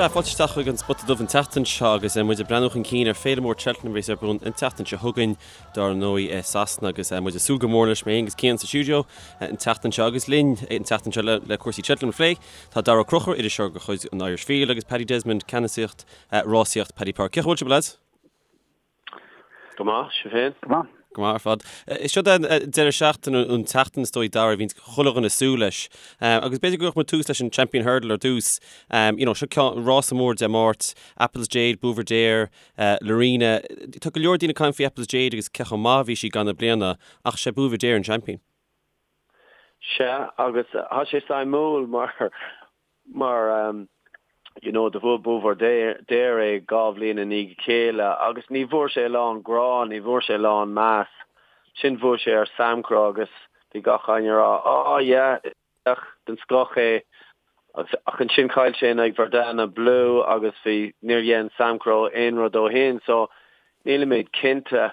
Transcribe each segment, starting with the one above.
Sea, fáilte isteach chuig an Spota Dubh an tseachtain seo agus muid ag breathnú chun cinn ar Féile Mór Cheltenham a bheas ar bun an tseachtain seo chugainn, dár ndóigh, i Sasana agus muid ag súil go mór leis, mé féin agus Cian sa stiúideo an tseachtain seo agus linn an tseachtain seo le cúrsaí Cheltenham a phlé tá Daragh Ó Conchúir, iriseoir de chuid an Irish Field agus Paddy Desmond, ceannasaíocht rásaíocht Paddy Power. Cén chaoi a bhfuil sibh, lads? Go maith, sibh féin? Go maith. Go maith ar fad. Seo an deireadh seachtaine, an tseachtain is dóigh, Dara, a bhíonns chuile dhuine ag súil leis. Agus b'fhéidir go gcuirfeadh muid tús leis an Champion Hurdle ar dtús. You know, seo ceann, rása mór Dé Máirt, Apple's Jade, Buveur d'Air, Lorena. Tá go leor daoine ag caint faoi Apple's Jade agus cé chomh maith a bhí sí i gcaitheamh na bliana, ach sé Buveur d'Air an champion. Sea, agus tá sé suimiúil mar mar you know do bhuaigh Buveur d'Air é 2 bhliain i ndiaidh a chéile agus ní bhfuair sé a lán grá, ní bhfuair sé a lán meas. Ansin bhuaigh sé ar Samcro agus bhí gach éinne ag rá oh yeah, is den scoth é ach ansin chaill sé in aghaidh Verdana Blue agus bhí, níor dhein Samcro aon rud ó shin so nílimid cinnte.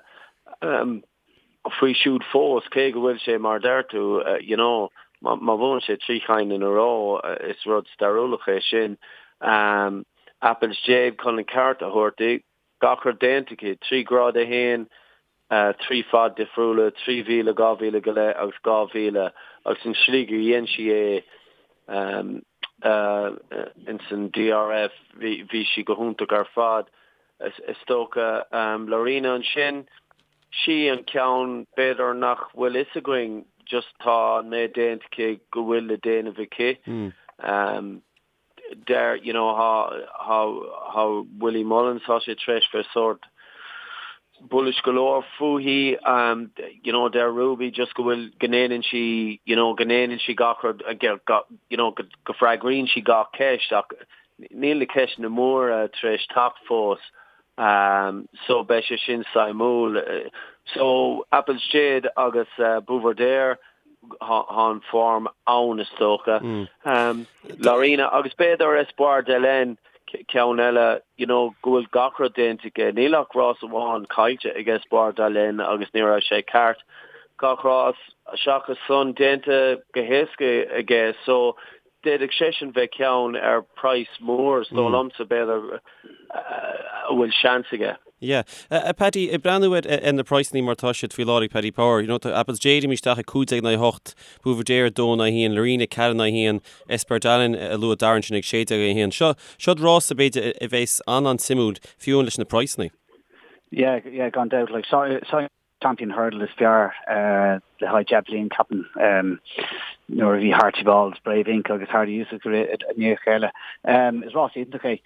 Faoi siúd fós, cé go bhfuil sé mar a deir tú, you know, má bhuann sé 3 chinn in a row, is rud stairiúlach é sin. Apple's Jade chun an ceart a thabhairt di, gach rud déanta aici, 3 Grád 1, 3 fad difriúla, 3,000, 2,000 go leith agus 2,000, agus an slí gur dhein sí é ins an DRF, bhí sí go hiontach ar fad. Is dócha Lorena ansin. Sí an ceann b'fhéidir nach bhfuil fhios againn just tá an méid déanta aici go bhfuil le déanamh aici. Deir you know thá thá thá Willie Mullins tá sé tar éis bheith sórt bullish go leor fúithi you know deir Ruby just go bhfuil go ndéanann sí you know go ndéanann sí gach rud you know go go freagraíonn sí gach ceist ach níl na ceisteanna móra tar éis teacht fós. So beidh sé sin suimiúil. So Apple's Jade agus Buveur d'Air, thá an form ann is dócha. Lorena agus b'fhéidir Espoir d'Hélène, ceann eile, you know, go bhfuil gach rud déanta aige. Níl ach rás amháin caillte ag Espoir d'Hélène agus ní raibh sé ceart. Gach rás seachas san déanta go héasca aige. So D'fhéadfadh seisean bheith ceann ar praghas mór, is dóigh liomsa, b'fhéidir, a bhfuil seans aige. Yeah. Paddy, ag breathnú ar na praghsanna mar atá siad faoi láthair ag Paddy Power, you know, tá Apple's Jade imithe isteach ag 15 in aghaidh 8, Buveur d'Air 2 in aghaidh 1, Lorena 4 in aghaidh 1, Espoir d'Hélène a luaigh Darren ansin ag 16 in aghaidh 1. Seo, seo rása b'fhéidir a bheas an-an-suimiúil, fiú amháin leis na praghsanna. Yeah, yeah, gan dabht. Like, so, so Champion Hurdle is fearr le haghaidh 10 bliain, ceapaim, nuair a bhí Harchibald, Brave Inc agus Hardy Yusuf i ndiaidh a chéile. Is rás iontach é.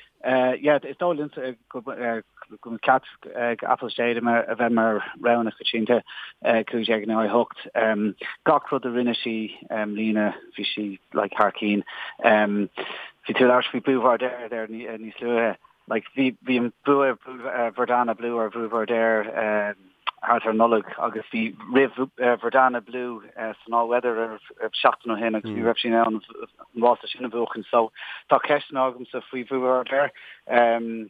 Yeah, is dóigh liomsa go mbeadh ceart ag Apple's Jade a bheith mar rogha na coitianta, 15 in aghaidh 8. Gach rud a rinne sí i mbliana, bhí sí like thar cinn. Bhí tú ag labhairt faoi Buveur d'Air there níos luaithe. Like, bhí, bhí an bua Verdana Blue ar Buveur d'Air thart ar Nollaig agus bhí rith Verdana Blue san All Weather ar seachtain ó shin agus ní raibh sí in ann an rása sin a bhuachan. So tá ceisteanna agamsa faoi Buveur d'Air. Um,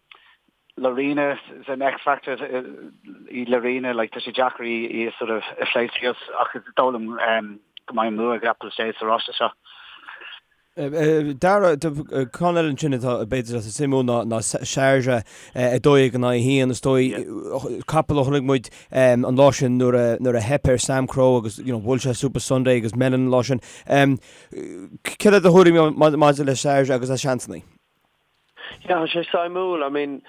Lorena is an X-factor í Lorena, like, tá sé deacair í, í a sort of a phlé síos ach is dóigh liom um, go mbeidh an bua ag Apple's Jade sa rása seo. Dara, ceann eile ansin atá b'fhéidir atá suimiúil ná ná Sharjah 12 in aghaidh 1 is dóigh capall a chonaic muid an lá sin nuair a nuair a theip ar Samcro agus you know bhuail sé Supasundae agus Melon an lá sin. Céard é do thuairim maidir le Sharjah agus a seansanna? Yeah, tá sé suimiúil. I mean,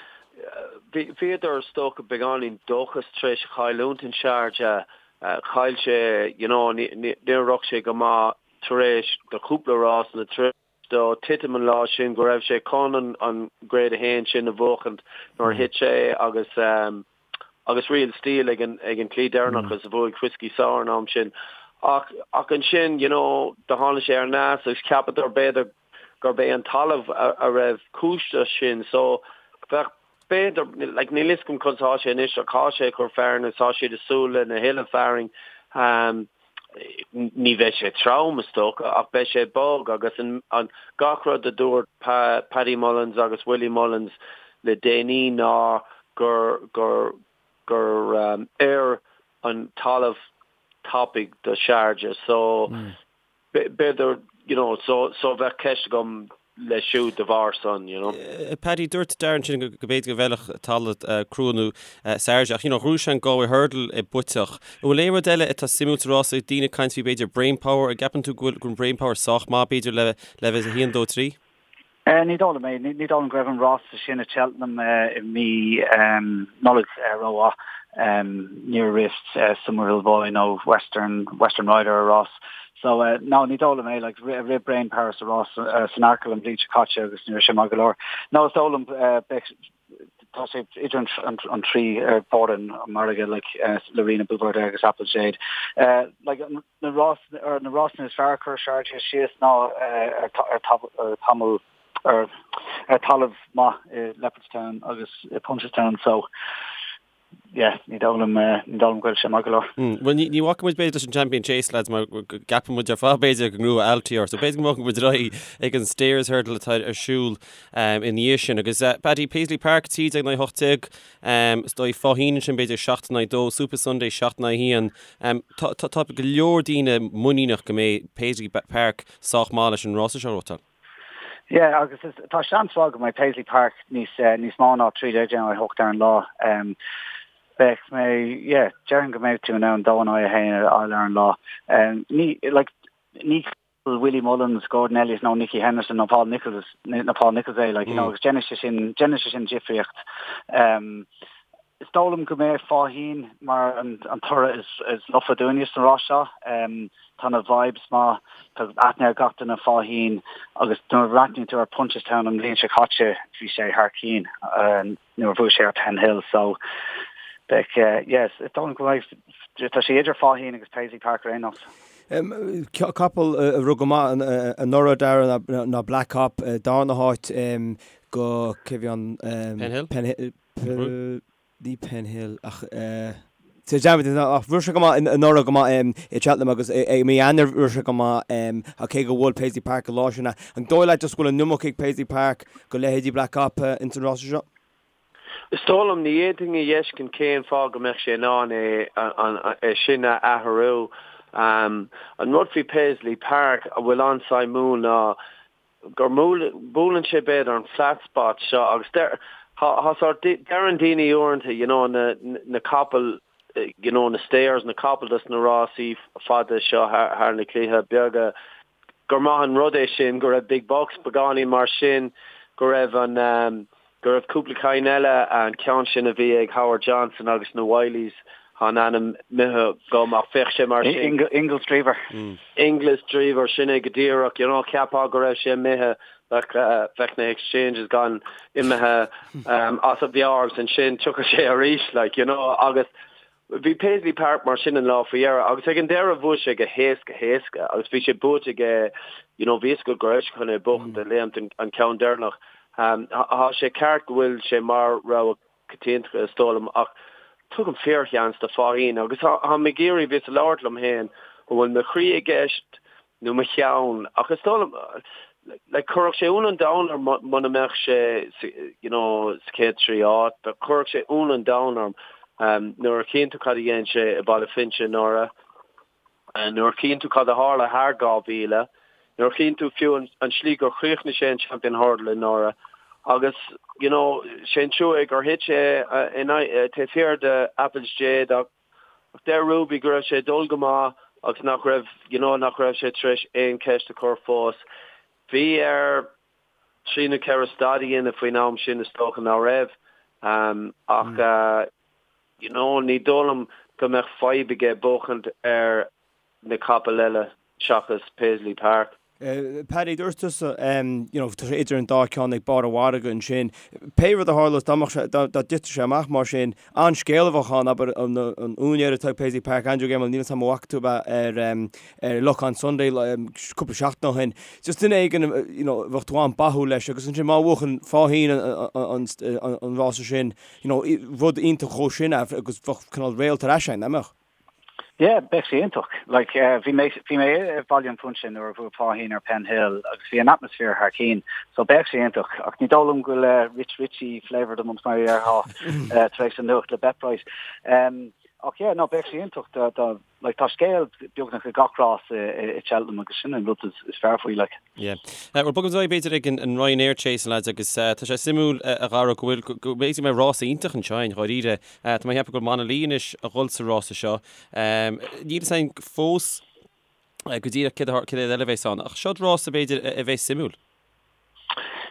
bhíodar is dócha beagáinín dóchas tar éis a chailliúint in Sharjah. Chaill sé, you know, níor rith sé go maith tar éis do chúpla rás nó tar éis dó titim an lá sin go raibh sé chun an an Grade 1 sin a bhuachaint nuair a thit sé agus agus Real Steel ag an ag an tslí deireanach agus a bhuaigh Whiskey Sour an am sin. Ach ach ansin, you know, do tháinig sé ar ais agus cheapadar b'fhéidir gurb é an talamh a a raibh cúis leis sin. So bheadh b'fhéidir, like níl fhios agam conas atá sé anois ach tá sé ag cur fearainn agus tá siad ag súil lena thuilleadh fearainn. Ní bheidh sé trom, is dócha, ach beidh sé bog agus an gach rud a dúirt Paddy Mullins agus Willie Mullins le déanaí ná gur gur gur oir an talamh tapaidh do Sharjah. So b'fhéidir, you know, so so bheadh ceist agam. Leis siúd de bharr san, you know. Paddy, dúirt Darren sin go b'fhéidir go bhfeilfeadh talamh crua nó Sharjah ach you know ghnóthaigh sé an Galway Hurdle i bpuiteach. An bhfuil aon rud eile atá suimiúil sa rás ag daoine ag caint faoi b'fhéidir Brain Power, an gceapann tú go bhfuil go bhfuil Brain Power sách maith b'fhéidir le le bheith 1, 2, 3? Ní dóigh liom é. Ní dóigh liom go raibh an rása sin i Cheltenham i mí Nollag rómhaith. Níor rith Summerhill Boy nó Western Western Rider a rás. So, no, ní dóigh liom é, like, rith Brain Power sa rás san Arkle an bhliain seo caite agus ní raibh sé maith go leor. No, is dóigh liom, beidh, tá sé idir an trí ar bord an mhargaidh, like, Lorena Buveur d'Air agus Apple Jade. Like, na rás, ar na rásanna is fearr a chuir Sharjah síos ná ar ar tamall, ar ar talamh maith i Leopardstown agus i Punchestown, so, yeah, ní dóigh liom, ní dóigh liom go bhfuil sé maith go leor. Bhuel, ní bhacfaidh muid b'fhéidir leis an Champion Chase, lads, mar go gceapann muid ar fad b'fhéidir go ngnóthóidh Altior, so b'fhéidir go mbogfaidh muid ar aghaidh ag an Stayers Hurdle atá ar siúl ina dhiaidh sin. Agus Paddy, Paisley Park, 13 in aghaidh 18, is dóigh Faugheen ansin b'fhéidir 7 in aghaidh 2, Supasundae 7 in aghaidh 1. Tá go leor daoine muiníneach go mbeidh Paisley Park sách maith leis an rása seo a ghnóthachtáil. Yeah, agus is, tá seans mhaith go mbeidh Paisley Park níos, níos mó ná 13 in aghaidh 8 ar an lá. Beidh mé, yeah, déarfainn go mbeidh tú in ann 2 in aghaidh 1 a fháil ar an lá. Ní, like, ní Willie Mullins, Gordon Elliott nó Nicky Henderson nó Paul Nicholls, nó Paul Nicholls é, like, you know, agus déanann sé sin, déanann sé sin difríocht. Is dóigh liom go mbeidh Faugheen mar an toradh is lofa dúinne sa rás seo. Tá na vibes maith, tá aithne ar gach duine Faugheen agus nuair a bhreathnaíonn tú ar Punchestown an bhliain seo caite bhí sé thar cinn nuair a bhuaigh sé ar Penhill so beidh, yes, is dóigh liom go mbeidh, tá sé idir Faugheen agus Paisley Park ar aon nós. Capall a rith go maith anuraidh Darren ná Black Cop, darna háit go, cé bhí an? Penhill? Penhill. Ní Penhill ach ach rith sé go maith anuraidh go maith i Cheltenham agus i mí Eanáir rith sé go maith ach cé gur bhuail Paisley Park an lá sin. An dóigh leat just go bhfuil an iomarca ag Paisley Park go leithéidí Black Cop ins an rása seo? Is dóigh liom, ní fhéadfainn a fheiscint cén fáth go mbeadh sé in ann é é sin a athrú. An rud faoi Paisley Park a bhfuil an-suimiúil ná gur buaileann sé b'fhéidir an flat spot seo agus deir thá sort deireann daoine uaireanta you know na na capaill you know na stayers na capaill dos na rásaí fada seo thar na claíche beaga gur maith an rud é sin go raibh Big Buck's beagáinín mar sin go raibh an um, go raibh cúpla cinn eile, an ceann sin a bhí ag Howard Johnson agus na Wylie's, tá an ainm imithe agam ach bheadh sé mar sin. Inglis Drever. Inglis Drever, sin é go díreach, you know, cheapfá go raibh sé imithe, bheadh, bheadh na exchanges gan imithe as a mheabhair agus ansin tiocfaidh sé arís, like, you know, agus Bhí Paisley Park mar sin an lá faoi dheireadh agus ag an deireadh bhuaigh sé go héasca héasca agus bhí sé buaite aige, you know, bhí fhios agat go raibh sé chun é buachaint a léimt an ceann deireanach. Tá sé ceart go bhfuil sé mar rogha coitianta is dóigh liom ach tugaim fíorsheans do Faugheen agus táim ag iarraidh bhíos ag labhairt liom féin an bhfuil mo chroí i gceist nó mo cheann ach is dóigh liom like chuirfeadh sé ionadh an domhain orm muna mbeadh sé you know sa chéad 3 áit but chuirfeadh sé ionadh an domhain orm um, nuair a chíonn tú cad a dhein sé i Baile Finse anuraidh nuair a chíonn tú cad a tharla thar 2000 nuair a chíonn tú fiú an, an slí gur chríochnaigh sé an Champion Hurdle anuraidh agus you know sé an trua é gur thit sé in taobh thiar de Apple's Jade ach Ach deir Ruby go raibh sé ag dul go maith agus nach raibh, you know, nach raibh sé tar éis aon cheist a chur fós. Bhí air trí nó ceithre stad a dhéanamh faoin am sin is dócha ná raibh. Ach, you know, ní dóigh liom go mbeadh fadhb aige buachaint ar na capaill eile seachas Paisley Park. Paddy, dúirt tusa, you know, tá sé idir an dá cheann ag barr an mhargaidh ansin. Pé rud a tharlós, dá mbeadh sé, dá dtitfeadh sé amach mar sin, an-scéal a bheadh ann, abair, an úinéir atá ag Paisley Park, Andrew Gemmell, níl 'fhios a'm an bhfaca tú é ar, ar Luck on Sunday cúpla seachtain ó shin. Just duine éigin, you know, bheadh tú an-báúil leis agus ansin má bhuachann Faugheen an, an rása sin, you know, rud iontach dhó sin agus bheadh cineál réalt ar ais ann, nach mbeadh? Yeah, bheadh sé iontach. Like, bhí mé, bhí mé i Baile an Phúinse nuair a bhuaigh Faugheen ar Penhill agus bhí an atmaisféar thar cinn, so bheadh sé iontach. Ach ní dóigh liom go bhfuil Rich Ricci flavour of the month mar a déarfá tar éis an nuacht le BetBright. Ach yeah, no, beidh sé iontach dá, dá, like, tá scéal beagnach ag gach rás i, i Cheltenham agus sin an rud is, is fearr faoi, like. Yeah. Bhuel, bogfaidh muid ar aghaidh b'fhéidir ag an, an Ryanair Chase, a lads, agus tá sé suimiúil, a Dhara, go bhfuil, go, go b'fhéidir go mbeidh rás iontach anseo i ndáiríre. Tá mé ag ceapadh go bhfuil Monalee anois a dhul sa rása seo. Níl fhios againn fós go díreach céard a, céard eile a bheas ann, ach seod rása b'fhéidir a bheas suimiúil.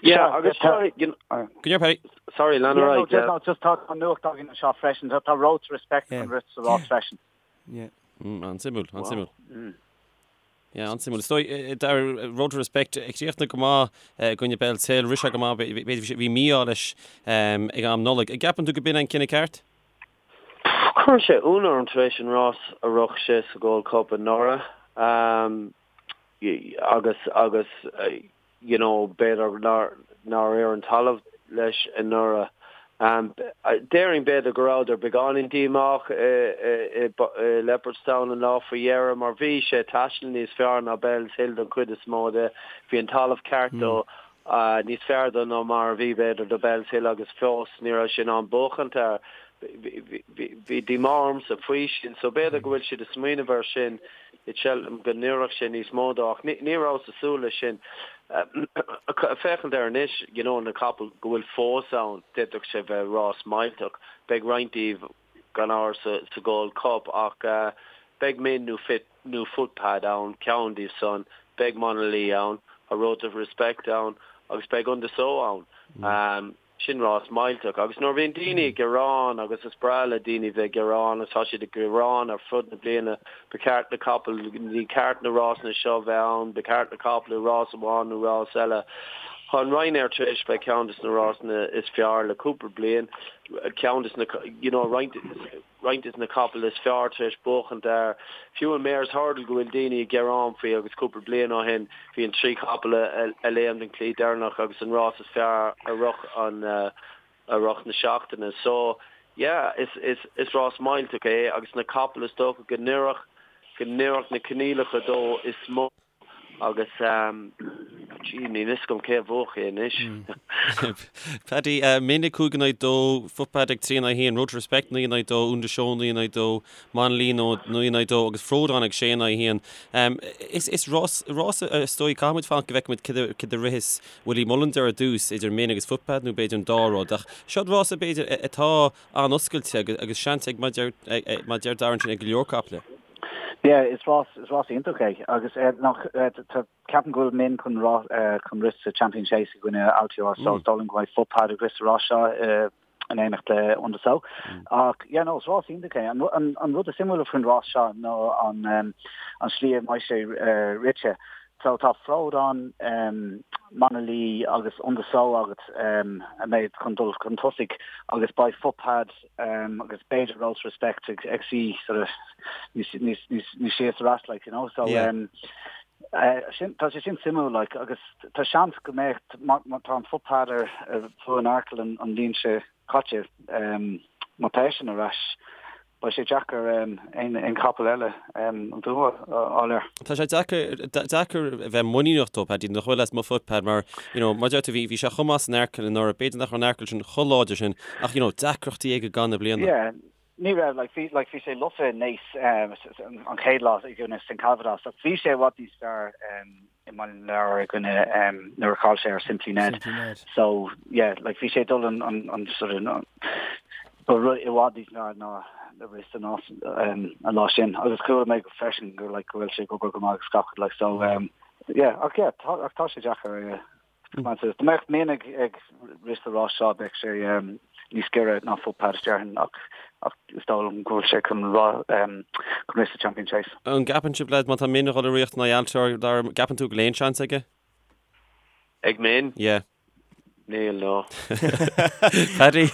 Yeah, agus tá, you know, Go ndéarfaidh Paddy. Sorry, lean ar aghaidh, yeah. No, just tá nuacht againn anseo freisin. Tá Road to Respect chun rith sa rás freisin. Yeah. Mm, an-suimiúil, an-suimiúil. Yeah, an-suimiúil. Is dóigh, dar Road to Respect ag críochnú go maith i gcoinne Bellshill, rith sé go maith, b'fhéidir bhí mí-ádh leis ag am Nollag. An gceapann tú go b'in an cinneadh ceart? Chuir sé ionadh orm tar éis an rás a rith sé sa Gold Cup anuraidh. Agus, agus, you know, b'fhéidir nár, nár oir an talamh leis anuraidh. Déarfainn b'fhéidir go rabhadar beagáinín díomách i, i, i Leopardstown an lá faoi dheireadh mar bhí sé ag taisteal níos fearr ná Bellshill don chuid is mó de. Bhí an talamh ceart dó, níos fearr dó ná mar a bhí b'fhéidir do Bellshill agus fós ní raibh sé in ann buachaint air. Bhí díomá ormsa faoi sin so b'fhéidir go bhfuil siad ag smaoineamh air sin i Cheltenham go n-oirfeadh sé níos mó dó ach ní rabhas ag súil leis sin. Féachaint air anois, you know, na capaill go bhfuil fós ann, d'fhéadfadh sé bheith rás millteach. Beidh roinnt díobh gan amhras sa Gold Cup ach beidh Min nó Fit nó Footpad ann, ceann díobh san, beidh Monalee ann, tá Road to Respect ann agus beidh Un de Sceaux ann. Sin rás millteach. Agus nuair a bhíonn daoine ag gearán, agus is breá le daoine bheith ag gearán, agus tá siad ag gearán ar fud na bliana, ba cheart na capaill, ní ceart na rásanna seo bheith ann, ba cheart na capaill i rás amháin nó rás eile. Tá an Ryanair tar éis bheith ceann de na rásanna is fearr le cúpla bliain, ceann de na, you know, roinnt, roinnt de na capaill is fearr tar éis buachaint air. Fiú an Mares Hurdle go bhfuil daoine ag gearán faoi agus cúpla bliain ó shin bhí an 3 chapall a léim den chlaí deireanach agus an rás is fearr i rith an i rith na seachtaine. So yeah is is is rás millteach é agus na capaill is dócha go n-oirfeadh go n-oirfeadh na coinníollacha dó is mó. Agus, gee, níl fhios agam cé a bhuafadh é anois. Paddy, Min ag 5 in aghaidh 2, Footpad ag 3 in aghaidh 1, Road to Respect 9 in aghaidh 2, Un de Sceaux 9 in aghaidh 2, Monalee 9 in aghaidh 2 agus Frodon ag 6 in aghaidh 1. Is rás, rás is dóigh, caithfidh muid fanacht go bhfeicfidh muid céard a ritheas Willie Mullins ar dtús idir Min agus Footpad nó b'fhéidir an dá rud. Ach seo rás b'fhéidir atá an-oscailte agus seans ag, mar a deir Darren sin, ag go leor caiple. Yeah, is rás, is rás iontach é agus eh, nach, eh, tá, ceapaim go bhfuil Min chun rá, eh, chun rith sa Champion Chase i gcoinne Altior so is dóigh liom go mbeidh Footpad ag rith sa rás seo eh, in éineacht le Un de Sceaux. Ach yeah, no, is rás iontach é. An, an, an rud is suimiúla faoin rás seo ná an, um, an slí a mbeidh sé eh, rite. So tá Frodon, um, Monalee agus Un de Sceaux agat um, a mbeidh chun dul chun tosaigh agus beidh Footpad agus b'fhéidir Road to Respect ag ag suí sort of níos níos níos níos sia sa rás like you know so yeah. um, uh, sin tá sé sin suimiúil like agus tá seans go mbeidh má má tá an Footpad ar ar bhuaigh an Arkle an an bhliain seo caite um, má tá eisean ar ais beidh sé deacair um, aon aon chapall eile um, an bua a fháil air. Tá sé deacair deacair a bheith muiníneach dó Paddy nach bhfuil as mo Footpad mar you know mar deir tú bhí bhí sé chomh maith san Arkle anuraidh b'fhéidir nach raibh an Arkle sin chomh láidir sin ach you know deacrachtaí aige gan na bliana. Yeah ní raibh like bhí like bhí sé lofa i Naas um, an chéad lá i gcoinne Saint Calvados ach bhí sé i bhfad níos fearr um, i mBaile na Lobhar i gcoinne um, nuair a chaill sé ar Simply Ned. Simply Ned. So yeah like bhí sé dul an an an sort of ba rud i bhfad níos fearr ná a rith an um, an lá sin agus chuala mé go freisin gur like go bhfuil sé ag obair go maith agus gach like so um, Yeah, ach yeah, tá, ach tá sé deacair, yeah. Dá mbeadh Min ag, ag rith sa rás seo, bheadh sé um, níos giorra ná Footpad déarfainn, ach, ach is dóigh liom go bhfuil sé chun rá, um, chun rith sa Champion Chase. An gceapann sibh, lads, má tá Min ag dul ag rith in aghaidh Altior, Dara, gceapann tú go bhfuil aon seans aige? Ag Min? Yeah. Níl, no. Paddy?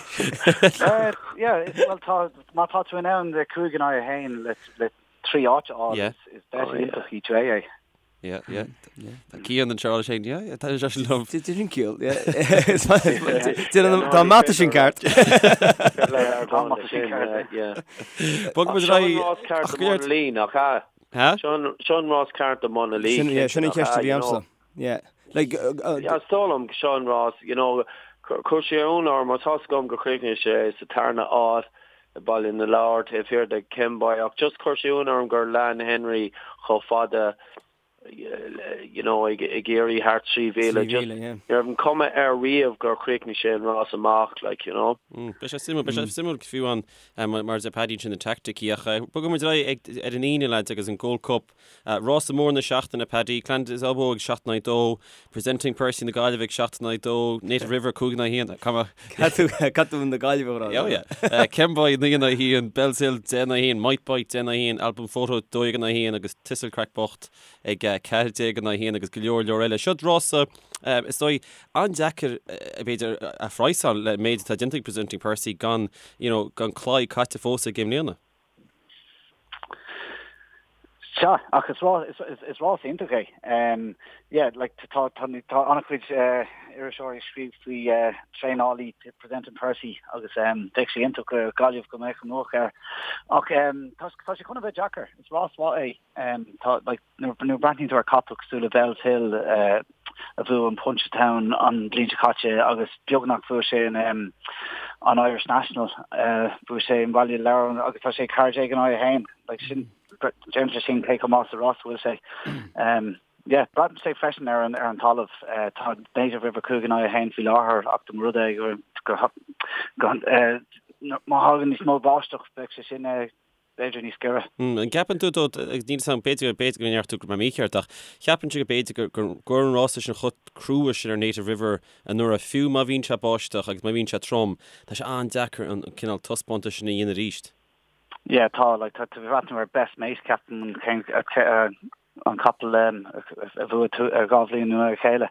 Uh, yeah, well, tá, má tá tú in ann le 5 in aghaidh 1 le, le 3 áit a fháil, Yeah. is, is bet iontach í é. Yeah, yeah. Tá Cian anseo leis féin, yeah, yeah, tá sé sin liom. Did sin ciall, yeah. Tá mata sin ceart. Bog muid ar aghaidh. Seo an rás ceart do Monalee, nach ea? Ha? Seo an rás ceart do Monalee. Sin, yeah, sin an cheist a bhí agamsa. Yeah. Like, yeah, is dóigh liom seo an rás, you know, chuir sé ionadh orm, mar tá's agam gur chríochnaigh sé sa tarna áit. Baile na Lobhar taobh thiar de Kemboy ach just chuir sé ionadh orm gur lean Henry chomh fada you know ag iarraidh thart 3,000 just ní raibh an cuma air riamh gur chríochnaigh sé an rás amach like you know. Beidh sé suimiúil, beidh sé suimiúil fiú an mar a deir Paddy sin na teaicticí ach bogfaidh muid ar aghaidh ar an Aoine lads agus an Gold Cup. Rása mór na seachtaine, Paddy, Clan Des Obeaux ag 7 in aghaidh 2, Presenting Percy na Gaillimhe ag 7 in aghaidh 2, Native River 5 in aghaidh 1, Caithfidh tú na Gaillimhe a rá. Oh yeah. Kemboy 9 in aghaidh 1, Bellshill 10 in aghaidh 1, Might Bite 10 in aghaidh 1, Album Photo 12 in aghaidh 1 agus Thistlecrack bocht ag 14 in aghaidh 1 agus go leor leor eile. Seo rása is dóigh an-deacair b'fhéidir a phraghsáil le méid atá déanta ag Presenting Percy gan you know gan claí caite fós aige i mbliana. Sea, ach is is rás iontach é. Yeah, like tá tá tá an-chuid iriseoirí ag scríobh faoi traenálaí Presenting Percy agus bheadh sé iontach do Ghaillimh go mbeadh an luach air. Ach tá tá sé chun a bheith deacair. Is rás mhaith é. Tá like nuair a breathnaíonn tú ar capall cosúil le Bellshill a bhuaigh an Punchestown an bhliain seo caite agus beagnach bhuaigh sé an an Irish National, bhuaigh sé i mBaile na Lobhar agus tá sé 14 in aghaidh 1. Like sin déanann sé sin cé chomh maith sa rás a bhfuil sé. Yeah, braitheann sé freisin ar an ar an talamh. Tá Native River 5 in aghaidh 1 faoi láthair ach dá mba rud é go go má thagann níos mó báisteach beidh sé sin b'fhéidir níos giorra. An gceapann tú, agus níl 'fhios a'm, b'fhéidir, b'fhéidir go ndeir tú go mbeidh mé mícheart, ach cheapfainnse go b'fhéidir gur, gur, gur an rása sin chomh crua sin ar Native River anuraidh, fiú má bhíonn sé báisteach agus má bhíonn sé trom, tá sé an-deacair an cineál taispeántais sin a dhéanamh arís. Yeah, tá, like, tá tú ag breathnú ar Best Mate, ceapaim, an, an capall a bhuaigh 2 bhliain i ndiaidh a chéile.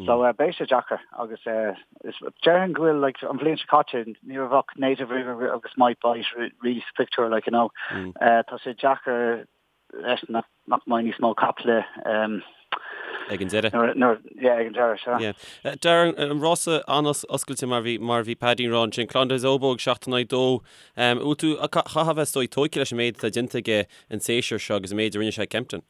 So beidh sé deacair agus déarfainn go bhfuil like an bhliain seo caite ní raibh ach Native River agus Might Bite really sa pictiúr like you know. Tá sé deacair leis nach nach mbeidh níos mó caiple Ag an deireadh. Nuair yeah ag an deireadh sea. Yeah. Darren, an rása an-oscailte mar bhí mar bhí Paddy ag rá ansin, Clan Des Obeaux ag 7 in aghaidh 2. Bhfuil tú, chaithfeá a bheith is dóigh tógtha leis an méid atá déanta aige an séasúr seo agus an méid a rinne sé ag Kempton.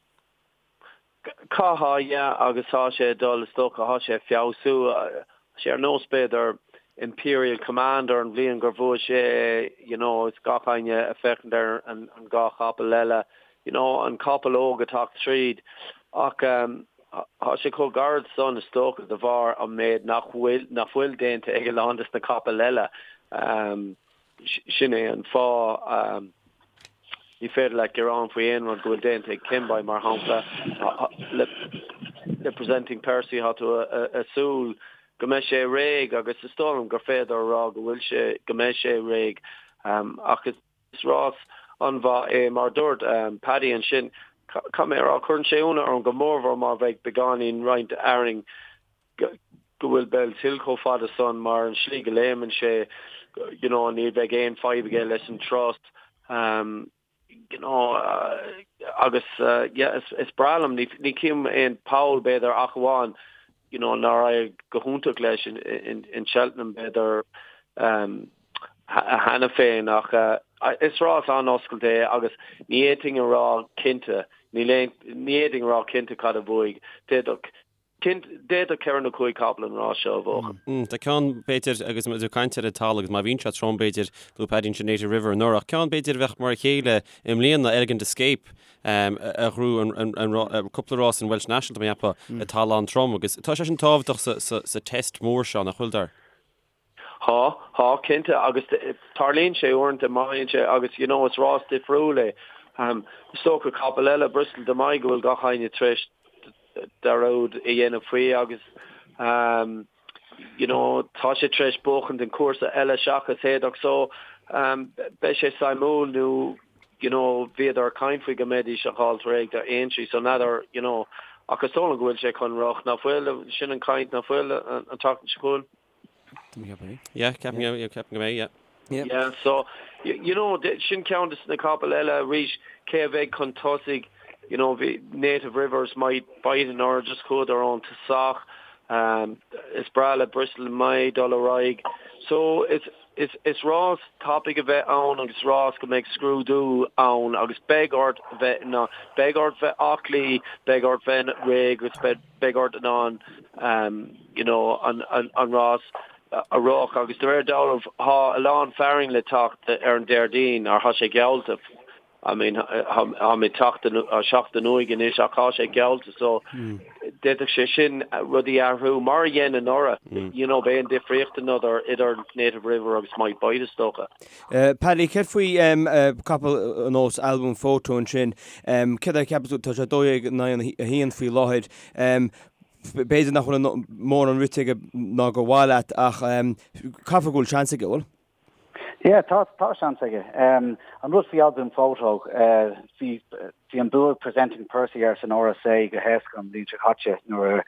Caithfeá, yeah, agus tá sé ag dul, is dócha, tá sé ag feabhsú. Tá sé ar nós, b'fhéidir, Imperial Commander an bhliain gur bhuaigh sé, you know, is gach éinne ag féachaint ar an dhá chapall eile, you know, an capall óg ag teacht tríd. Ach tá sé chomh gairid san, is dócha, de bharr an méid nach bhfuil, nach bhfuil déanta ag a lán des na capaill eile. Sin é an fáth. Ní féidir leat gearán faoi aon rud go bhfuil déanta ag Kemboy, mar shampla. Le Presenting Percy, tá tú ag súil go mbeidh sé réidh agus is dóigh liom gur féidir a rá go bhfuil sé, go mbeidh sé réidh. Ach is rás an-mhaith é, mar a dúirt Paddy ansin, caithfidh mé a rá, cuireann sé ionadh orm go mórmhór má bheidh beagáinín roinnt arraing go bhfuil Bellshill chomh fada san mar an slí go léimeann sé you know ní bheidh aon fadhb aige leis an trot you know agus yeah is is breá liom ní ní chím aon poll b'fhéidir ach amháin you know nár éirigh go hiontach leis in in in Cheltenham b'fhéidir cheana féin ach is rás an-oscailte é agus ní fhéadfainn a rá cinnte níl aon ní fhéadfainn a rá cinnte cad a bhuaigh d'fhéadfadh Cinnte, d'fhéadfadh 4 nó 5 capall an rás seo a bhuachan. Tá ceann, b'fhéidir, agus muid ag caint ar an talamh agus má bhíonn sé trom, b'fhéidir, luaigh Paddy ansin Native River anuraidh, ach ceann, b'fhéidir, a bheadh mar a chéile i mbliana, Elegant Escape, a ghnóthaigh cúpla rás an Welsh National, tá mé ag ceapadh, i dtalamh an-trom agus tá sé sin tábhachtach sa test mór seo, nach bhfuil, Dar? Tá, tá, cinnte, agus tarlaíonn sé uaireanta, má théann sé, agus you know is rás difriúil é. Is dócha capall eile, Bristol De Mai, go bhfuil gach éinne tar éis dearúd a dhéanamh faoi agus you know tá sé tar éis buachaint an cúrsa eile seachas Haydock so beidh sé suimiúil nó you know bhíodar ag caint faoi go mbeidís á fháil réidh do Aintree so n'fheadar you know ach is dóigh liom go bhfuil sé chun rith, nach bhfuil, sin an chaint, nach bhfuil an tseachtain seo chugainn? Yeah, ceapaim yeah, ceapaim go mbeidh, yeah. Yeah. Yeah, so, you know, sin ceann de na capaill eile arís, cé a bheidh chun tosaigh, you know, bhí Native Rivers Might Bite anuraidh, just chuadar ón tosach, um, is breá le Bristol Mai dul ar aghaidh. So, is, is, is rás tapaidh a bheidh ann agus rás go mbeidh scrúdú ann agus beidh ort bheith in ann, beidh ort bheith aclaí, beidh ort bheith réidh agus beidh, beidh ort in ann, um, you know, an, an, an rás. a rith agus de réir dealraimh thá a lán fearainn le teacht ar an Déardaoin or thá sé geallta I mean tháimid seachtain uaidh anois ach thá sé geallta so d'fhéadfadh sé sin rudaí a athrú mar a dhein anuraidh you know b'é an difríocht another idir Native River agus Might Bite is dócha. Paddy, céard faoi capall ar nós Al Boum Photo ansin, céard é a cheapas tú, tá sé 12 in aghaidh a haon faoi láthair, B'fhéidir nach bhfuil mórán rite aige ná gur mhaith leat ach caithfidh go bhfuil seans aige, bhfuil? Yeah, tá, tá seans aige. An rud faoi Al Boum Photo, bhí, bhí an bua ag Presenting Percy air san RSA go héasca an bhliain seo caite nuair,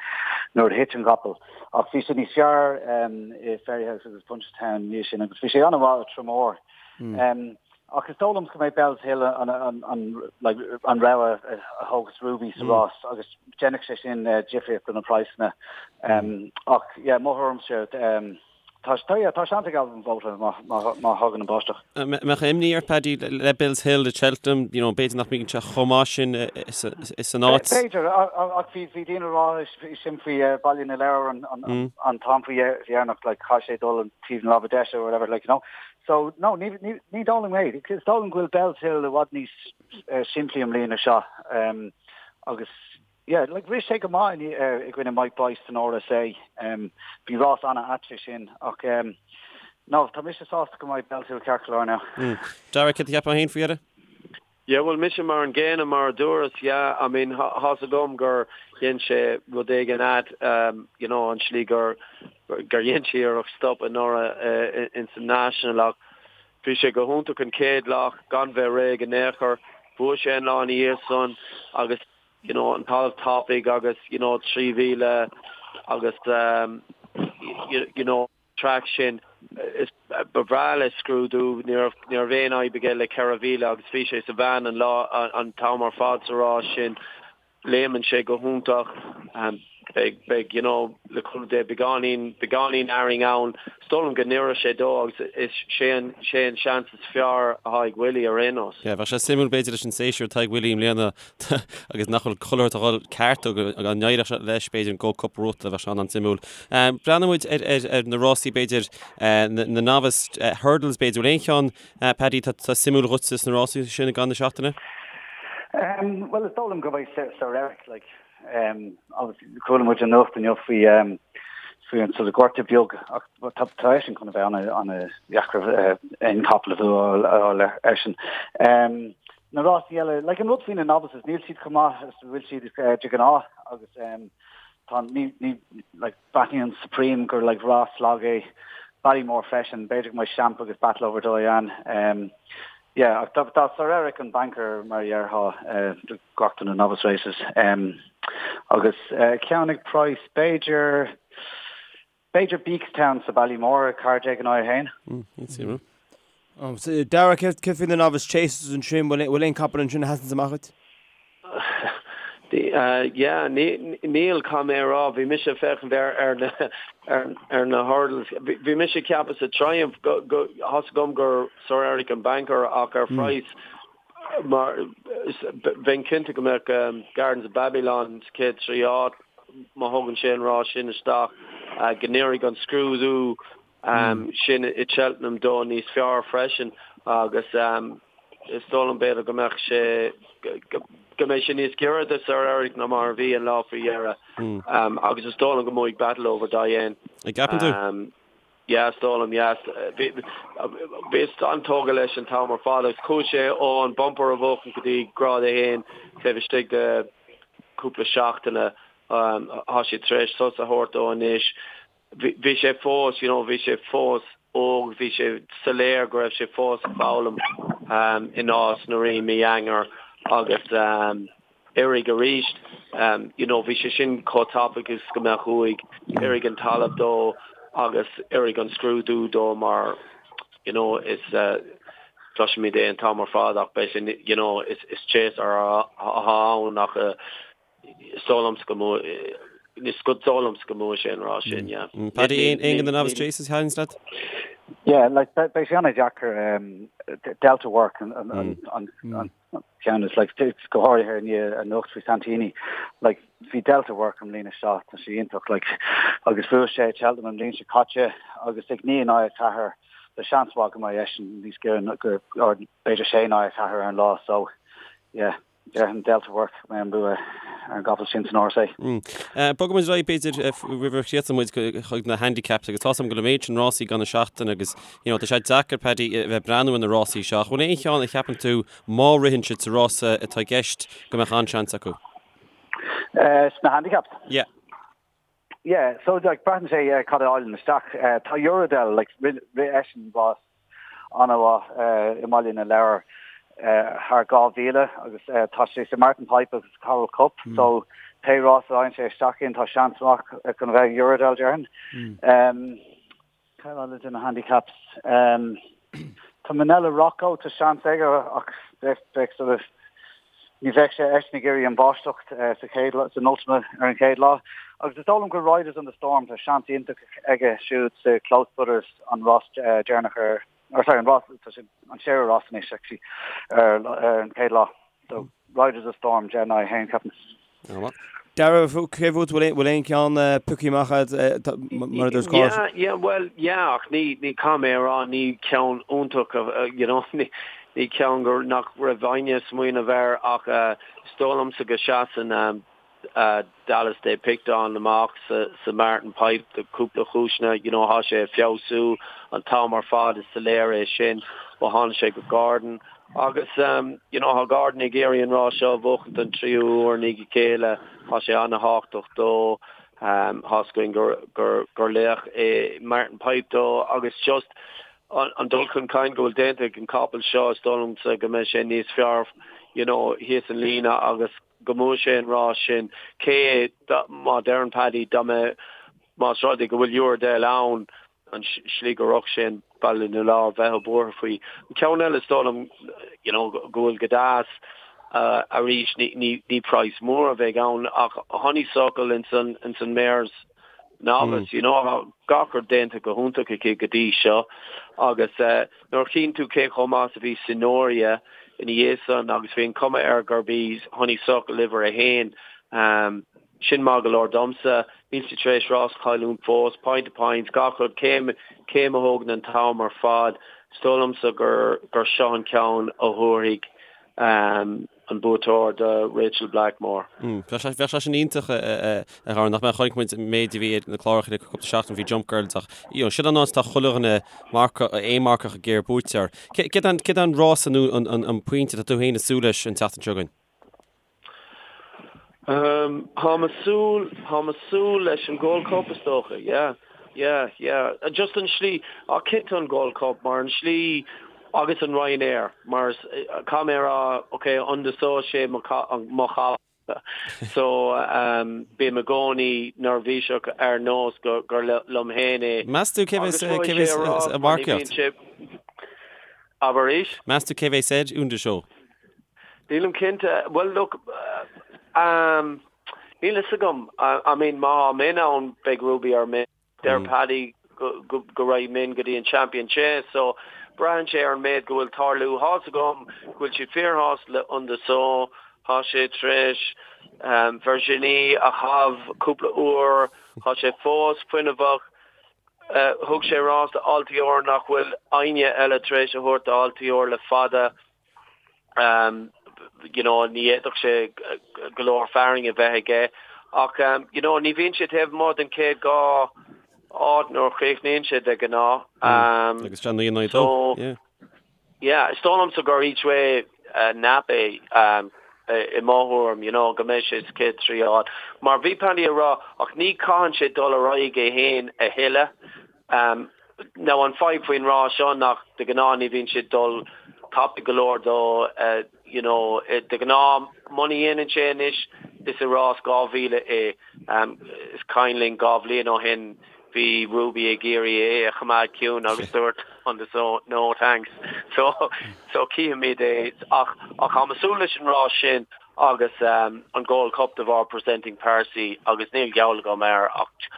nuair a thit an capall. Ach bhí sé níos fearr i Fairyhouse agus Punchestown ina dhiaidh sin agus bhí sé an-mhaith i Tramore. Ach is dóigh liom go mbeidh Bellshill an an rogha a thógfas Ruby sa rás agus déanfaidh sé sin difríocht do na praghsanna. Ach yeah, mo thuairimse tá tá yeah, tá seans ag Al Boum Photo má má thagann an báisteach. Mbeadh imní ort Paddy le Bellshill i Cheltenham, you know, b'fhéidir nach mbíonn sé chomh maith sin san áit. B'fhéidir, ach bhí bhí daoine ag rá sin faoi Baile na Lobhar an an t-am faoi dheireanach, like chaith sé dul an taobh na láimhe deise or whatever, like, you know. So, no, ní, ní, ní dóigh liom é. Is dóigh liom go bhfuil Bellshill i bhfad níos simplí i mbliana seo. Agus, yeah, like, rith sé go maith i, i gcoinne Might Bite san RSA. Bhí rás an-ait é sin. Ach, no, tá mise sásta go mbeidh Bellshill ceart go leor now. Darragh, céard a cheapfá féin faoi dheireadh? Yeah, bhuel, mise mar an gcéanna, mar a dúras, yeah, I mean, thá's agam gur dhein sé rud éigin ait, you know, an slí gur, gur dhein sé iarracht stop anuraidh ins an National ach bhí sé go hiontach an chéad lá gan bheith réidh in aon chor. Bhuaigh sé an lá ina dhiaidh san agus, you know, an talamh tapaidh agus, you know, 3,000 agus, you know, traic sin. Is ba bhreá leis scrúdú, ní raibh ní raibh aon fhadhb aige le 4,000 agus bhí sé sa mheán an lá an t-am ar fad sa rás sin. Léimeann sé go hiontach. Beidh beidh you know le cúnamh Dé beagáinín beagáinín fhearainn ann. Is dóigh liom go n-oirfidh sé dó agus is sé an sé an seans is fearr atá ag Willie ar aon nós. Yeah, bheadh sé suimiúil b'fhéidir leis an séasúr atá ag Willie i mbliana agus nach bhfuil chuile shórt ag dul ceart dó go n-éireodh sé leis b'fhéidir an Gold Cup a bhuachtáil bheadh sé an-suimiúil. Breathnóidh muid ar na rásaí b'fhéidir na novice hurdles b'fhéidir. Bhfuil aon cheann Paddy atá suimiúil dhuitse sna rásaí sin i gcaitheamh na seachtaine? Bhuel is dóigh liom go mbeidh Sir Eric like obviously chuala muid an nuacht inniu faoi faoi an sort of gortú beag ach tá tá eisean chun a bheith ana ana dheacair aon capall a bhualadh eisean. Na rásaí eile, like an rud faoi na novices, níl siad chomh maith is a bhfuil siad de ghnáth agus tá ní ní like breathnaíonn Supreme gur like rás lag é Ballymore freisin, b'fhéidir go mbeidh Champ agus Battleoverdoyen. Yeah, ach tá tá Sir Eric an banker mar a déarfá do gach de na novice races. Agus ceann ag praghas b'fhéidir B'fhéidir Beakstown sa Ballymore, 14 in aghaidh 1. Suimiúil. Darragh, céard faoi na novice chases ansin, bhfuil aon capall ansin a sheasanns amach duit? Yeah, níl, caithfidh mé a rá, bhí mise ag féachaint ar ar na ar na hurdles. Bhí mise ag ceapadh sa Triumph go go thá's agam gur Sir Eric an banker ach ar phraghas mar bheinn cinnte go mbeadh Gardens of Babylon sa chéad trí áit má thugann sé an rás sin isteach, go n-oirfidh an scrúdú sin i Cheltenham dó níos fearr freisin agus is dóigh liom b'fhéidir go mbeadh sé go mbeidh sé níos giorra do Sir Eric ná mar a bhí an lá faoi dheireadh agus is dóigh liom go mbuafaidh Battleoverdoyen. An gceapann tú? Yeah, is dóigh liom, yeah. Bhíos an-tógtha leis an t-am ar fad agus chuaigh sé ó an bumper a bhuachan go dtí grád 1 taobh istigh de cúpla seachtaine. Tá siad tar éis sos a thabhairt dó anois. Bhí sé fós, you know, bhí sé fós óg, bhí sé soiléir go raibh sé fós ag foghlaim i Nás na Rí mí Eanáir agus oirfidh arís. You know, bhí sé sin chomh tapaidh is go mbeadh uaidh. Oirfidh an talamh dó agus oirfidh an scrúdú dó mar, you know, is cloisimid é an t-am ar fad ach beidh sé, you know, is is chaser atá ann ach is dóigh liomsa go mbuafaidh, is dóigh liomsa go mbuafaidh sé an rás sin, yeah. Paddy, aon de na novice chases a thaitníonns leat? Yeah, like beidh sé an-deacair um, Delta Work an, an, mm. an, mm. an, an ceann is like go háirithe i ndiaidh anocht faoi Santini. Like bhí Delta Work an mbliain seo tá sé iontach like agus bhuaigh sé Cheltenham an bhliain seo caite agus ag 9 in aghaidh 4 tá seans mhaith go mbeidh eisean níos giorra go or b'fhéidir 6 in aghaidh 4 ar an lá so yeah. Déarfainn Delta Work go mbeidh an bua ar an gcapall sin san RSA. Bogfaidh muid ar aghaidh b'fhéidir roimh a chríochnóidh muid chuig na handicaps agus tá's agam go bhfuil an méid sin rásaí ann an seachtain agus you know tá sé deacair Paddy a bheith ag breathnú ar na rásaí seo. Ach bhfuil aon cheann a cheapann tú má ritheann siad sa rása atá i gceist go mbeadh an-seans acu? Sna handicaps? Yeah. Yeah, so like braitheann sé uh, cad a fháileann isteach. Uh, tá Uradel like rith eisean rás an-mhaith uh, i mBaile na Lobhar uh, thar 2000 agus uh, tá sé sa Martin Pipe agus Coral Cup mm. so pé rás a fhaigheann sé isteach in tá seans maith chun bheith Uradel déarfainn. Mm. Um, Cad eile de na handicaps? Tá Minella Rocco, tá seans aige ach bheadh sort of ní bheadh sé eisean ag iarraidh an bháisteach sa chéad san Ultima ar an chéad lá. Agus is dóigh liom gur Riders on the Storm, tá seans iontach aige siúd sa Close Brothers an rás deireanach ar or sorry an rás tá sé an séú rás anois actually ar ar an chéad lá. So Riders of Storm 10 in aghaidh 1 ceapaim. Darragh, cé fút bhfuil aon cheann pioctha amach agat mar a dúirt Cáit? Yeah, yeah, well, yeah, ach ní, ní caithfidh mé a rá, ní ceann iontach, you know, ní, ní ceann gur, nach raibh éinne ag smaoineamh air ach is dóigh liomsa go seasann Dallas de Picton amach sa, sa Martin Pipe do cúpla chúiseanna, you know, thá sé ag feabhsú an t-am ar fad, is soiléir é sin ó tháinig sé go Gordon. Agus you know thá Gordon ag iarraidh an rás seo a bhuachaint don tríú huair i ndiaidh a chéile, thá sé ana-thábhachtach dó, thá's againn gur gur gur laoch é Martin Pipe dó agus just an dul chun cinn go bhfuil déanta ag an capall seo is dóigh liomsa go mbeidh sé níos fearr you know thíos an líne agus go mbuafaidh sé an rás sin. Cé má deireann Paddy dá mbeadh más rud é go bhfuil Uradel ann an slí go raibh sé in Baile na Lobhar bheifeá buartha faoi. An ceann eile is dóigh liom you know go bhfuil go deas arís ní ní ní praghas mór a bheidh ann ach Honeysuckle ins an ins an Mares Novice you know gach rud déanta go hiontach aici go dtí seo agus nuair a chíonn tú cé chomh maith is a bhí Signoria ina dhiaidh san agus bhí an cuma air gurb í Honeysuckle uimhir a haon Sin maith go leor domsa. Níl sí tar éis rás a chailliúint fós. Point to point, gach rud, céim, céim a thógann an t-am ar fad. Is dóigh liomsa gur, gur seo an ceann a thabharfaidh an buaiteoir do Rachael Blackmore. Bheadh sé, bheadh sé sin iontach a Dharragh, nach mbeadh? Chonaic muid an méid a bhí ar na cláracha le cúpla seachtain faoi Jump Girls ach, you know, sin an áit atá chuile dhuine marcach, aon marcach ag iarraidh buaiteoir. Céard é an, céard é an rása nó an, an, an pointe atá tú féin ag súil leis an tseachtain seo chugainn? Táim ag súil, táim ag súil leis an Gold Cup is dócha, yeah, yeah, yeah. Just an slí, ach cinnte an Gold Cup mar an slí agus an Ryanair mar is, caithfidh mé a rá, ok, Un de Sceaux sé mo mo chapall so bím i gcónaí neirbhíseach ar nós go gur liom féin é. Meas tú cé bheas cé bheas ag marcaíocht? Abair arís? Meas tú cé bheas ar Un de Sceaux? Nílim cinnte. Bhuel, look, um, níl fhios agam. I mean, má tá Min ann, beidh Ruby ar Min. Deir Paddy go, go, go raghaidh Min go dtí an Champion Chase, so braitheann sé ar an méid go bhfuil tarlú. Thá's agam go bhfuil siad fíorshásta le Un de Sceaux. Tá sé tar éis um, Virginie a chaitheamh cúpla uair. Tá sé fós fuinneamhach. Uh, thug sé rás do Altior nach bhfuil éinne eile tar éis a thabhairt do Altior le fada. You know, ní fhéadfadh sé go leor fearainn a bheith aige ach you know, ní bhíonn sé taobh amuigh den chéad dá áit nuair a chríochnaíonn sé de ghnáth. Agus sé 9 in 2, yeah. Yeah, is dóigh liomsa gur each way nap é i mo thuairim, you know, go mbeidh sé sa chéad trí áit. Mar bhí Paddy ag rá, ach ní chaitheann sé dul ar aghaidh é féin a thuilleadh. Now an fadhb faoin rás seo nach de ghnáth ní bhíonn sé ag dul tapaidh go leor dó you know de ghnáth muna dhéanann sé anois is i rás 2000 é. Is cuimhin linn 2 bhliain ó shin bhí Ruby ag iarraidh é a choimeád ciúin agus dúirt Un de Sceaux no thanks so so cífimid é ach ach táim ag súil leis an rás sin agus an Gold Cup de bharr Presenting Percy agus níl geall agam air ach.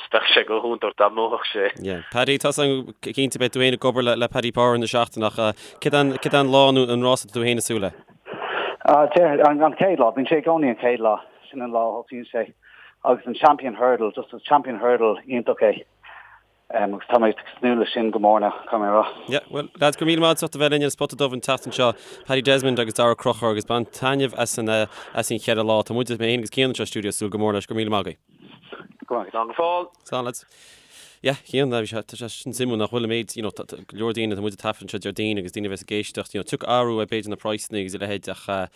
just bheadh sé go hiontach dá mbuafadh sé. Yeah. Paddy, tá san cinnte beidh tú féin ag obair le, le Paddy Power na seachtaine ach céard an, céard an lá nó an rás atá tú féin ag súil le? Ah, an, an chéad lá, bíonn sé i gcónaí an chéad lá, sin an lá a thosaíonn sé. Agus an Champion Hurdle, just an Champion Hurdle iontach é. Agus tá mé ag tnúth leis sin go mór now, caithfidh mé a rá. Yeah, bhuel, lads, go raibh míle maith agat as ucht a bheith linn ar an Spota Dubh an tseachtain seo, Paddy Desmond agus Daragh Ó Conchúir, agus bain taitneamh as an, as an cheithre lá. Tá muid, mé féin agus Cian anseo sa stiúideo, ag súil go mór leis. Go raibh míle maith agaibh. Go raibh maith agat. Slán go fóill. Slán, lads. Yeah, Cian, bhí sé, tá sé sin suimiúil nach bhfuil an méid, you know, tá, tá go leor daoine, tá muid ag taifead anseo Déardaoin agus daoine a bheas ag éisteacht, you know, tiocfaidh athrú ar b'fhéidir na praghsanna agus a leithéid ach eh,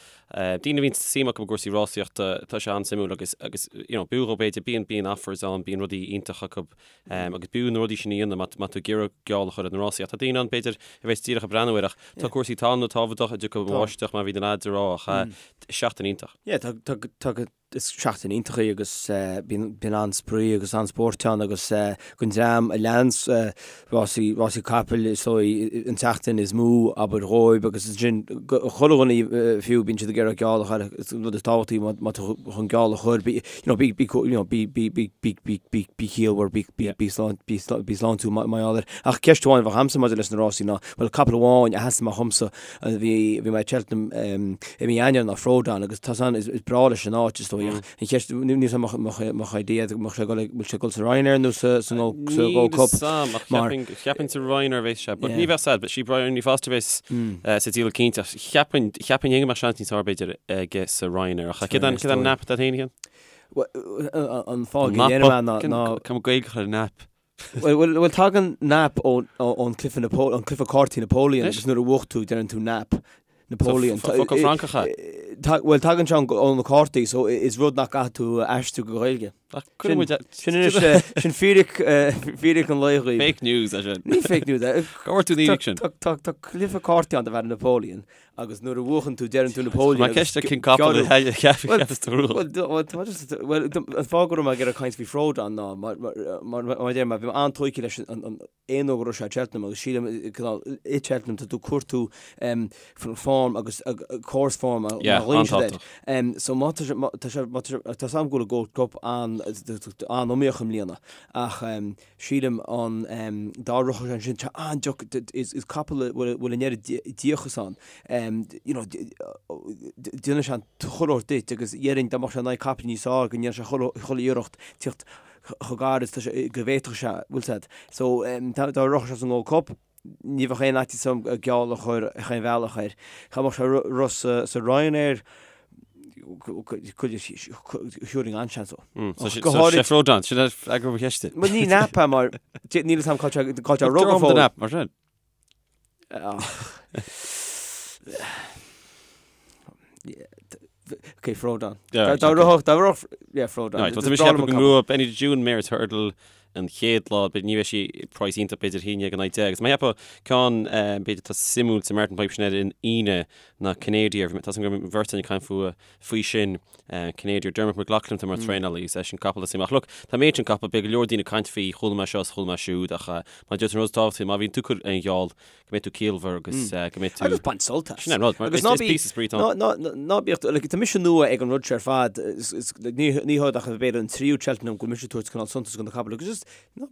Daoine a bhíonn suim acu i gcúrsaí rásaíochta, tá sé an-suimiúil agus, agus you know, b'fhiú dhóibh b'fhéidir, bíonn, bíonn offers ann, bíonn rudaí iontacha acu agus b'fhiú na rudaí sin a dhéanamh má, má tá tú ag iarraidh geall a chur ar na rásaí. Ach tá daoine ann b'fhéidir a bheas díreach ag breathnú air ach tá cúrsaí talún tábhachtach a dtiocfaidh an bháisteach mar a bhí na lads ag rá ach seachtain iontach. Yeah, tá, tá, tá go, Is seachtain iontach í agus bíonn an-spraoi agus an-spórt ann agus don dream a leananns rásaí, rásaí capaill is dóigh an tseachtain is mó abair dhóibh agus ansin chuile dhuine fiú bíonn siad ag iarraidh geall a chur is an rud is tábhachtaí má tá tú chun geall a chur bí you know bí bí you know bí bí bí bí bí bí bí ciallmhar bí bí bí slán bí bí sláintiúil mar gheall air. Ach ceist amháin a bheadh a'msa maidir leis na rásaí ná bhuel capall amháin a sheas amach dhomsa Bhí bhí mé i Cheltenham i mí Eanáir ná Frodon agus tá san is breá leis an áit is dóigh ach an cheist níl 'fhios a'm mbeadh idea mbeadh sé ag bhfuil sé ag dul sa Ryanair nó sa sa Gold sa Gold Cup mar cheapfainn sa Ryanair a bheas sé but ní bheadh sad but sí Bryony Foster bheas sa díol cinnte ach cheapfainn cheapfainn go mbeadh seans níos fearr b'fhéidir aige sa Ryanair ach céard an céard an nap atá féin An fáth go ndéanaim é ná ná Cam Gaeilge a chur ar nap. Bhuel, tagann nap ón cluiche an cluiche cártaí Napoleon agus nuair a bhuach tú deireann tú nap Napoleon. Focal Francach é? Bhuel, tagann sé ó na cártaí so is rud nach gcaithfidh tú a aistriú go Gaeilge. Sin anois, sin fíric, fíric an lae dhaoibh. Fake news é sin. Ní fake news é. Cá bhfuair tú an fhíric sin? Tá cluiche cártaí ann darb ainm Napoleon Agus nuair a bhuachann tú, deireann tú Napoleon. Mar ceist ar cén capall a cheapas tú rua. Bhuel, an fáth go raibh mé ag iarraidh caint faoi Frodon ná mar a deir mé, bhí mé an-tógtha leis an aon uair go raibh sé i Cheltenham agus sílim i Cheltenham tá tú ag cuartú form agus course form mar a ghlaonn siad air. So má tá sé, tá sé, tá 's agam go bhfuil an Gold Cup an-iomaíoch i mbliana ach Sílim an dá rithfeadh sé ansin, tá an-deacair, is capall a bhfuil an oiread díocas ann, you know, déanann sé an chuile shórt duit agus dhéarfainn dá mbeadh sé in aghaidh capaill níos fearr go ndéanfadh sé chuile iarracht tíocht chomh gar is go bhféadfadh sé, bhfuil 's a'd. So dá rithfeadh sé sa nGold Cup, ní bheadh aon fhaitíos orm geall a chur ar chaon bhealach air. Dá mbeadh sé rith sa Ryanair, thabharfainn an-seans dó. Go háirid... Sé Frodon, sin é freagra mo cheiste. Bhuel ní nap é mar níl 'fhios a'm cá bhfuil sé ag rith go fóill. Nap mar sin. Ok, Frodon. Dá rithfeadh, dá rithfeadh, yeah, Frodon. Right, tá mise ag ceapadh go mbuafaidh Benny the June Mares Hurdle an chéad lá, ní bheidh sí praghas iontach b'fhéidir 11 in aghaidh 10. Agus mé ag ceapadh ceann b'fhéidir atá suimiúil sa Martin Pipe sin ar an Aoine ná Canadian, tá 's agam go raibh an bheirt againn ag caint fúthu faoi sin, Canadian, Dermot McLaughlin atá mar traenálaí, is é sin capall is suim. Ach look, tá an méid sin capall, beidh go leor daoine ag caint faoi, chuala mé seo is chuala mé siúd ach mar a deir tú an rud is tábhachtaí, má bhíonn tú ag cur aon gheall, go mbeidh tú ciallmhar agus go mbeidh tú... Agus bain sult as. Sin é an rud, mar is píosa spraoi atá ann. Ná bíodh, like, tá mise nua ag an rud seo ar fad, ní hé ach b'fhéidir an tríú Cheltenham go bhfuil mise ag tabhairt cineál suntas do na capaill agus just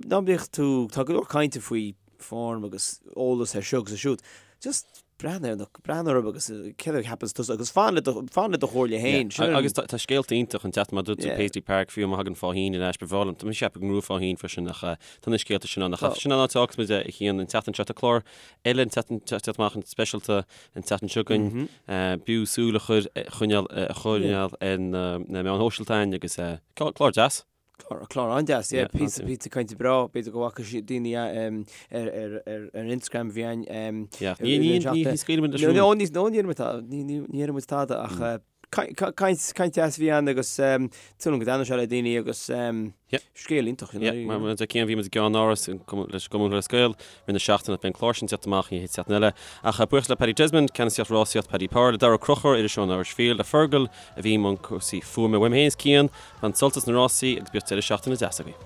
ná bíodh tú, tá go leor cainte faoi form agus eolas ar seo agus ar siúd, just breathnaigh ar na, breathnaigh orthu agus céard a cheapanns tusa agus fan le do, fan le do chomhairle féin. Sin an. Agus tá scéalta iontach an tseachtain, mar dúirt tú Paisley Park, fiú má thagann Faugheen ar ais, ba bhreá liom, tá mise ag ceapadh go ngnóthóidh Faugheen freisin ach tá na scéalta sin ann. Ach sin an áit a fhágfas muid é a Chian an tseachtain seo. Tá clár eile an tseachtain seo teacht amach an speisialta an tseachtain seo chugainn. B'fhiú súil a chur, a choinneáil, a choinneáil ar na meáin shóisialta againn agus clár deas. Clár, clár an-deas, yeah. Píosa, píosa cainte breá, b'fhéidir go bhfaca siad daoine ar, ar, ar, ar Instagram a bhí ann. Yeah, ní, ní, ní, ní scaoilfidh muid leis an rún. No, ní, no, ní déarfaidh muid tada, ní, ní, ní déarfaidh muid tada ach caint, caint deas a bhí ann agus súil agam go dtaitneoidh sé le daoine agus scéal iontach, you know. Yeah, mar a deir Cian, bhí muid i gceannáras leis an gCumann Lúthchleas Gael i rith na seachtaine, beidh an clár sin ag teacht amach an chéad seachtain eile. Ach buíochas le Paddy Desmond, Ceannasaíocht Rásaíocht Paddy Power, le Daragh Ó Conchúir, iriseoir an Irish Field, le Fergal a bhí i mbun cúrsaí fuaime. Uaim féin is Cian, Bain sult as na rásaí agus bíodh deireadh seachtaine deas agaibh.